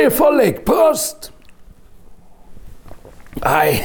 Moie Vollek, Prost! Ei,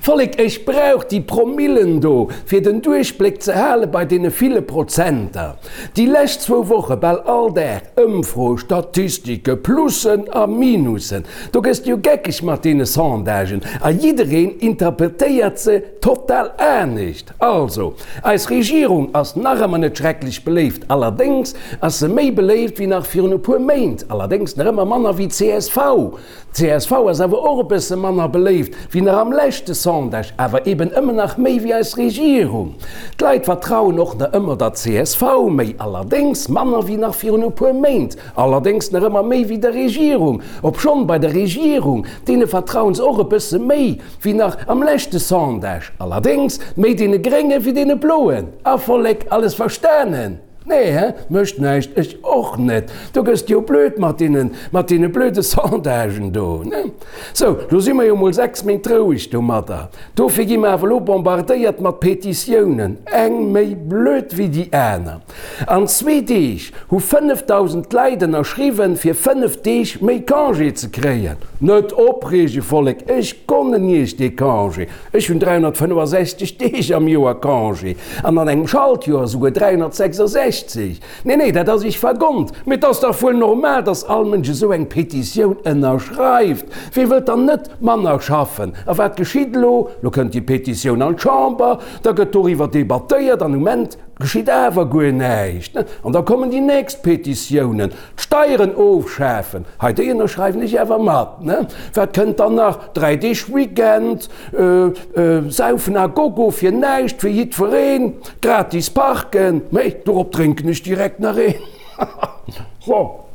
Vollek, ech brauch déi Promillen do, fir den Duerchbléck ze hale bei deene ville Prozenter. Déi lescht zwou Woche bal all Dag Ëmfroe, Statistike, Plussen a Minussen. Do gëss de jo geckeg mat deene Sondagen a jiddereen interpretéiert se total anescht. Also, eis Regierung ass nach ëmmer net schrecklech beléift, allerdéngs ass se méi beléift wéi nach virun e puer Méint, allerdéngs nach ëmmer manner wéi csv. Csv ass awer och e bësse manner beléift wéi nach am leschte Sondage, awer eben ëmmer nach méi wéi eis Regierung. D'Leit vertrauen och nach ëmmer der csv méi, allerdéngs manner wéi nach virun e puer Méint, allerdéngs nach ëmmer méi wéi der Regierung. Obschonn bei der Regierung, deene vertrauen se och e bësse méi wéi nach am leschte Sondage, allerdéngs méi deene Grénge wéi deene Bloen. A Vollek, alles verstanen? Nee, he? Mécht näischt, ech och net. Do gëss de jo blöd mat deenen, mat deene blöde Sondagen do, ne? Sou, lo si mer jo mol 6 Méint roueg domadder. Dofir gi mer awer lo bombardéiert mat Petitiounen, eng méi blöd wéi déi aner. An zwee Deeg hu 5.000 Leit ënnerschriwwen, fir 5 Deeg méi Congé ze kréien. Net opreege, Vollek, ech gonnen iech dee Congé. Ech hunn 365 Deeg am Joer Congé an an engem Schaltjoer esouguer 366. Nee, nee, dat ass iech vergonnt. Mee et ass dach wuel normal, dass all Mënsch esou eng Petitioun ënnerschreift. Wie wëllt dann net manner schaffen? A wat geschitt elo? Lo kënnt déi Petitioun an d'Chamber, da gëtt doriwwer debattéiert an um Enn geschitt awer guer näischt. An da kommen déi nächst Petitiounen. D'Steieren ofschafen, hei déi ënnerschreiwen ech awer mat, ne? Wat kënnt dann nach? 3 Deeg Weekend, Saufen à gogo fir näischt, fir jiddwereen, gratis parken, mee dorop drénken ech direkt nach een. So.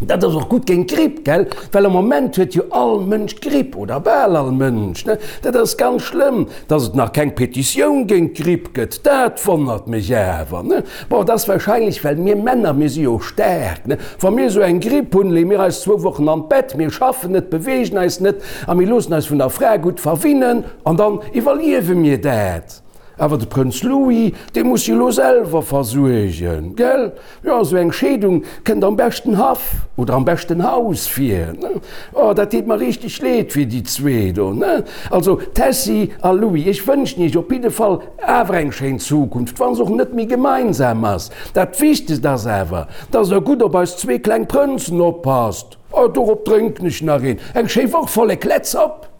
Dat ass och gutt géint d'Gripp, gell? Well am Moment huet jo all Mënsch d'Gripp, oder bal all Mënsch, ne? Dat ass ganz schlëmm. Dass et nach keng Petitioun géint d'Gripp gëtt, dat wonnert mech awer, ne? Bon, et ass wahrscheinlech, well mir Männer, mir si jo staark, ne? Wa mir esou eng Gripp hunn, leeë mir eis zwou Wochen an d'Bett, mir schaffen net, beweegen eis net a mir loossen eis vun der Fra gutt verwinnen an dann iwwerliewe mir dat. Awer de Prënz Louis, dee muss sech elo selwer versuergen, gell? Jo, esou eng Scheedung kënnt am beschten Haff oder am beschten Haus vir, ne? Oh, dat deet mer richteg leed fir déi zwee do, ne? Also, Tessy a Louis, ech wënschen iech op jidde Fall awer eng schéin Zukunft, wa se och net méi gemeinsam ass. Dat Wichtegst ass awer, dass der gutt op eis zwee kleng Prënzen oppasst. Oh, dorop drénken ech nach een. Eng schéi Woch, Vollek, let's op!